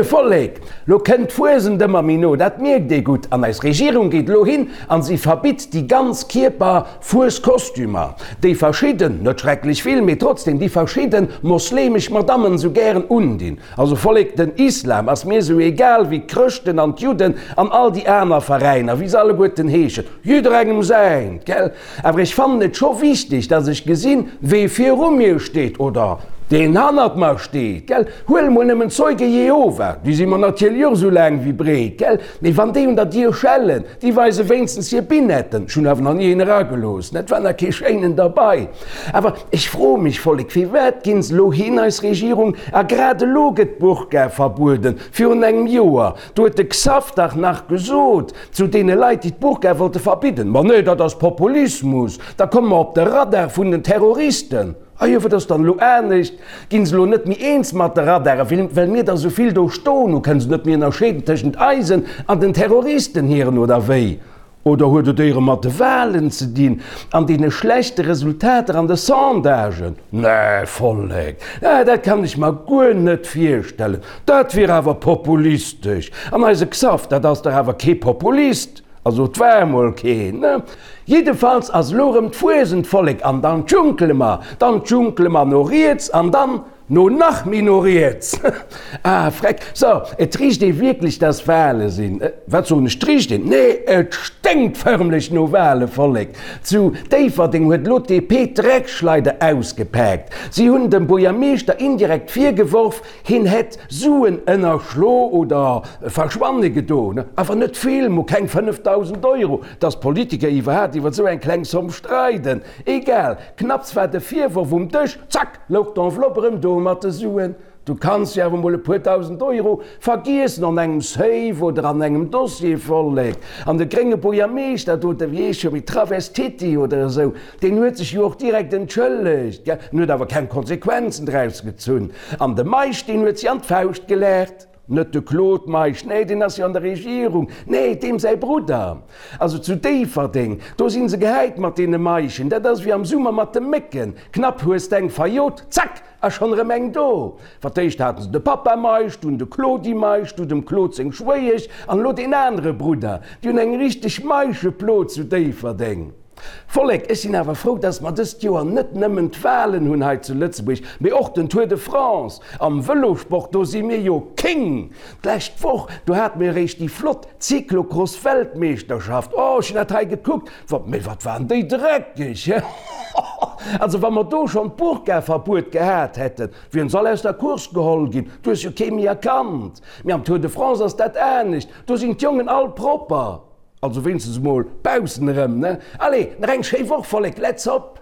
Moie Vollek! Lo kënnt d'Fuesent ëmmer méi no, dat mierkt ee gutt. An eis Regierung geet lo hin an si verbitt déi ganz Kierper Fueskostümer, déi verschidden, net schrecklech vill, mee trotzdem, déi verschidden moslemesch Madammen sou gären undinn. Also Vollek, den Islam ass mir sou egal wéi d'Chrëschten an d'Judden an all déi aner Veräiner, wéi se alleguerten heeschen, jidderengem säint, gell? Awer ech fannen et scho wichteg, dass ech gesinn, wee viru mir steet oder deen hannert mer steet, gell? Huel mol nëmmen d'Zeuge Jehova, déi si mer natierlech och sou laang wéi breet, gell? Mee wann déi un der Dier schellen, déi weise wéinstens hir Binetten. Ech hunn awer nach ni een eragelooss, et war nach kee schéinen derbei. Awer ech froe mech, Vollek, firwat ginn se elo hin, eis Regierung, a grad elo gëtt d'Burka verbueden? Virun engem Joer, do huet de Xaph dach nach gesot zu deene Leit, déi d'Burka wollte verbidden, Ma nee, dat ass Populismus, da komme mer op de Radar vun den Terroristen. A jo, wat ass dann elo anescht? Ginn se elo net méi eens mat de Radare, well mir der esou vill do stoen hu? Kënne se net méi ënnerscheeden tëschent eisen an den Terroristen hiren, oder wéi? Oder huet et éiere mat de Wahlen ze dinn an deene schlechte Resultater an de Sondagen? Nee, Vollek, dat kann ech mer guer net virstellen. Dat wier awer populistesch. An eise Xaph, dat ass dach awer kee Populist. Also et war emol keen, ne? Jiddefalls ass elo erëm d'Fuesent, Vollek, an dann djunkele mer, dann djunkele mer no riets an dann no nach méi no riets. Ah, freck. So, et richt ee wierklech, dass Wale sinn. Wat soen ech, 't richt een? Nee, et sténkt förmlech no Wale, Vollek. Zu Déifferdeng huet elo d'DP d'Dreckschleider ausgepaakt. Si hunn dem Buergermeeschter indirekt virgeworf, Hien hätt Suen ënnerschlo oder verschwanne gedoen, awer net vill, mo keng 5.000 Euro. Dass Politiker iwwerhaapt iwwer esou eng kleng Zomm streiden, egal, knapps war de Virworf um Dësch, zack, louch d'Enveloppe erëm do mat de Suen. Du kanns jo awer mol e puer dausend Euro vergiessen an engem Safe oder an engem Dossier, Vollek. An de grénge Buergermeeschter do, de wéi heescht scho méi, Travestiti oder esou, Deen huet sech jo och direkt entschëllegt, gell, en huet awer keng Konsequenzen draus gezunn. An de Meisch, deen huet si an d'Fauscht gelaacht. Net de Claude Meisch, nee, deen ass jo an der Regierung, nee, deem säi Brudder. Also zu Déifferdeng, do si se gehäit mat deene Meischen, dat ass wéi am Summer mat de Mécken, knapp hues d'eng verjot, zack, a schonn erëm eng do. Fir d'éischt haten se de Papa Meisch, dunn de Claudi Meisch, du dem Claude seng Schwéiesch an elo deen anere Brudder. Déi hunn eng richteg Meischeplo zu Déifferdeng. Vollek, ech sinn awer frou, dass mer dëst Joer net nëmmen d'Wahlen hunn hei zu Lëtzebuerg, mee och den Tour de France. Am Vëlosport, do si mir jo King! D'lescht Woch, do hate mir eréischt déi flott Cyclocross-Weltmeeschterschaft. Oh, ech hunn dat hei gekuckt, wat, mee wat waren déi dreckeg, he? Also, wa mer do schonn d'Burka-Verbuet gehat hätten, wieren se all aus der Course geholl ginn. Du hues jo kee méi erkannt. Mee am Tour de France ass dat anescht, do sinn d'Jongen all propper. Also wéinstens emol baussen erëm, ne? Allez, nach eng schéi Woch, Vollek, let's hop!